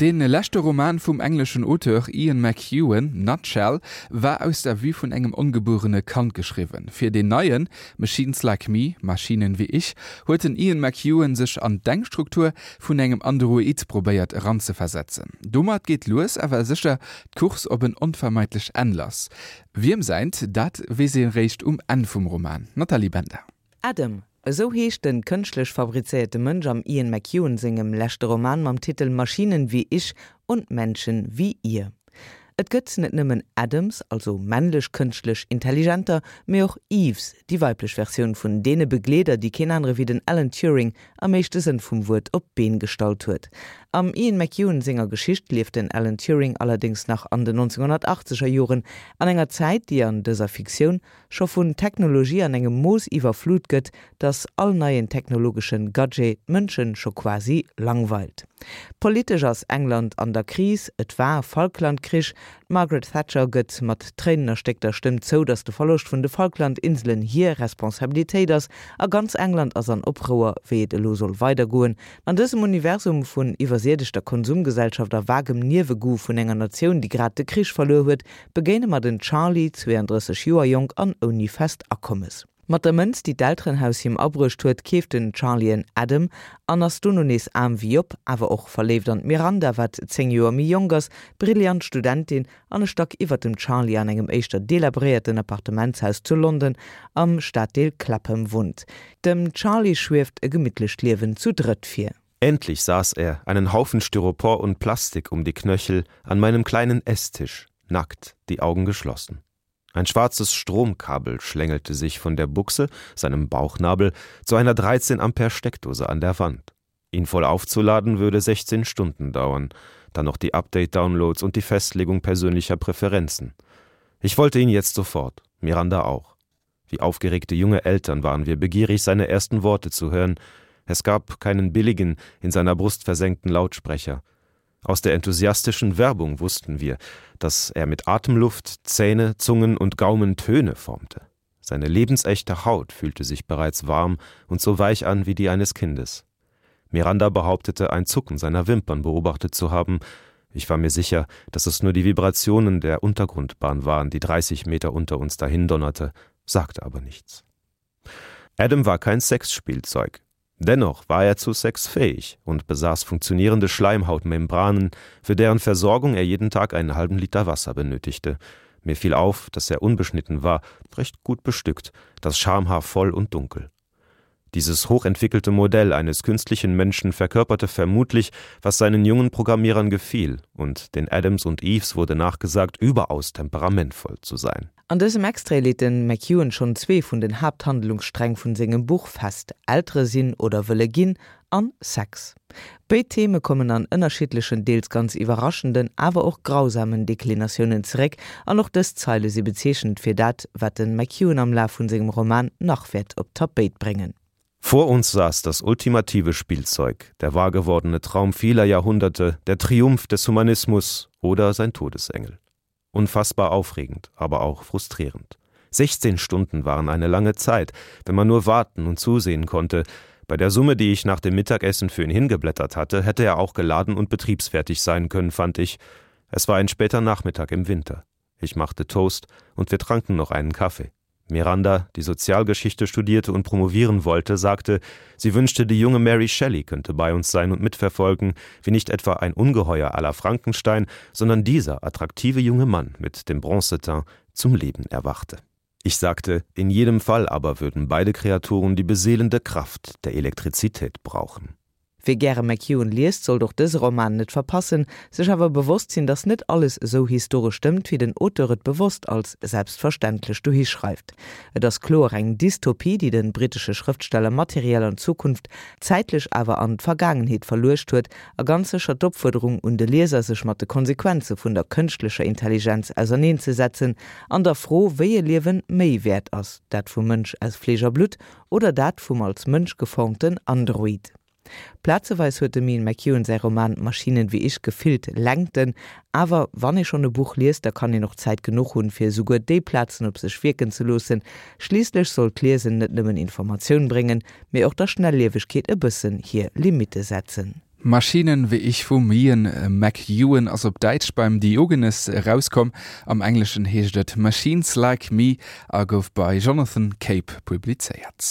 Dee leschte Roman vum engleschen Auteur Ian McEwan, Nutshell, war aus der Vue vun engem ongebuerene Kand geschriwwen. Fir deen neien, Machines Like Me, Maschinen wie ich, huet den Ian McEwan sech an d'Denkstruktur vun engem Android probéiert eranzeversetzen. Domat geet lues awer sécher d'Course op en onvermeidlech Enn lass. Wiem säint, dat weess ee réischt um Enn vum Roman. Nathalie Bender. Adam, esou heescht den kënschtlech fabrizéierte Mënsch am Ian McEwan sengem leschte Roman mam Titel Maschinen wie ich und Menschen wie ihr. Et gëtt net nëmmen Adams, also männlech kënschtlech Intelligenter, mee och Eves, déi weiblech Versioun vun deene Begleeder, déi keen anere wéi den Alan Turing am éischte Sënn vum Wuert op d'Been gestallt huet. Am Ian McEwan senger Geschicht lieft den Alan Turing allerdéngs nach an den 1980er Joren, an enger Zäit, déi an dëser Fiktioun scho vun Technologie an engem Mooss iwwerflut gëtt, dass all neien technologeschen Gadget d'Mënschen scho quasi langweilt. Politesch ass England an der Kris, et war Falklandkrich, d'Margaret Thatcher gëtt mat tréinenerstéckter Stëmm zou, dass de Verloscht vun de Falklandinselen hir Responsabilitéit ass, a ganz England ass an Oprouer, wéi et elo soll weidergoen. An dësem Universum vun iwwersiedegter Konsumgesellschaft a vagem Niewegoût vun enger Natioun, déi grad de Krich verluer huet, begéine mer den Charlie, 32 Joer jonk an ouni fest Akommes. Mat der Mënz, déi d'Elterenhaus him abruecht huet, keeft den Charlie en Adam an ass dono nees aarm wéi Job, awer och verléift an d'Miranda, wat 10 Joer méi jonk ass, brillant Studentin an e Stack iwwert dem Charlie an engem éischter delabréierten Appartementshaus zu London am Staddeel Clapham wunnt. Dem Charlie schwieft e gemittlecht Liewen zu drëtt vir. Endlich saß er, einen Haufen Styropor und Plastik um die Knöchel, an meinem kleinen Esstisch, nackt, die Augen geschlossen. Ein schwarzes Stromkabel schlängelte sich von der Buchse, seinem Bauchnabel, zu einer 13 Ampere Steckdose an der Wand. Ihn voll aufzuladen würde 16 Stunden dauern, dann noch die Update-Downloads und die Festlegung persönlicher Präferenzen. Ich wollte ihn jetzt sofort, Miranda auch. Wie aufgeregte junge Eltern waren wir begierig, seine ersten Worte zu hören. Es gab keinen billigen, in seiner Brust versenkten Lautsprecher. Aus der enthusiastischen Werbung wussten wir, dass er mit Atemluft, Zähne, Zungen und Gaumen Töne formte. Seine lebensechte Haut fühlte sich bereits warm und so weich an wie die eines Kindes. Miranda behauptete, ein Zucken seiner Wimpern beobachtet zu haben. Ich war mir sicher, dass es nur die Vibrationen der Untergrundbahn waren, die 30 Meter unter uns dahindonnerte, sagte aber nichts. Adam war kein Sexspielzeug. Dennoch war er zu Sex fähig und besaß funktionierende Schleimhautmembranen, für deren Versorgung er jeden Tag einen halben Liter Wasser benötigte. Mir fiel auf, dass er unbeschnitten war, recht gut bestückt, das Schamhaar voll und dunkel. Dieses hochentwickelte Modell eines künstlichen Menschen verkörperte vermutlich, was seinen jungen Programmierern gefiel, und den Adams und Eves wurde nachgesagt, überaus temperamentvoll zu sein. An dësem Extrait leet de McEwan schonn zwee vun den Haapthandlungssträng vun sengem Buch fest, Eltere sinn oder wëlle ginn an Sex. Béid Theme kommen an ënnerschiddlechen, deels ganz iwwerraschenden, awer och grausamen Deklinatiounen zeréck, an och dës Zeile si bezeechnend fir dat, wat de McEwan am Laf vun sengem Roman nach wäert op d'Tapéit bréngen. Vor uns saß das ultimative Spielzeug, der wahrgewordene Traum vieler Jahrhunderte, der Triumph des Humanismus oder sein Todesengel. Unfassbar aufregend, aber auch frustrierend. 16 Stunden waren eine lange Zeit, wenn man nur warten und zusehen konnte. Bei der Summe, die ich nach dem Mittagessen für ihn hingeblättert hatte, hätte er auch geladen und betriebsfertig sein können, fand ich. Es war ein später Nachmittag im Winter. Ich machte Toast und wir tranken noch einen Kaffee. Miranda, die Sozialgeschichte studierte und promovieren wollte, sagte, sie wünschte, die junge Mary Shelley könnte bei uns sein und mitverfolgen, wie nicht etwa ein Ungeheuer aller Frankenstein, sondern dieser attraktive junge Mann mit dem Bronzeteint zum Leben erwachte. Ich sagte, in jedem Fall aber würden beide Kreaturen die beseelende Kraft der Elektrizität brauchen. Wie gäre McEwan liest, sollt och dëse Roman net verpassen, sech awer bewosst sinn, datt net alles esou historesch stëmmt, wéi den Auteur et bewosst als selbstverständlech dohi schreift. Et ass kloer eng Dystopie, déi de brittesche Schrëftsteller materiell an d'Zukunft, zäitlech awer an d'Vergaangenheet verluecht huet a ganz sécher d'Opfuerderung un de Lieser, sech mat de Konsequenze vun der kënschtlecher Intelligenz auserneenzesetzen an der Fro, wéi e Liewen méi wäert ass, dat vum Mënsch aus Fleesch a Blutt oder dat vum als Mënsch geformten Android. Plazeweis huet dem Ian McEwan säi Roman Maschinen wie ich gefillt Längten, awer wann ee schonn e Buch liest, da kann een och Zäit genuch hunn, fir esouguer déi Plazen op sech wierken ze loossen. Schliisslech soll d'Liesen net nëmmen Informatioun bréngen, mee och der Schnelliewegkeet e bëssen hir Limitte setzen. Maschinen wie ich vum Ian McEwan ass op Däitsch beim Diogenes erauskomm. Am Engleschen heescht et Machines Like Me a gouf bei Jonathan Cape publizéiert.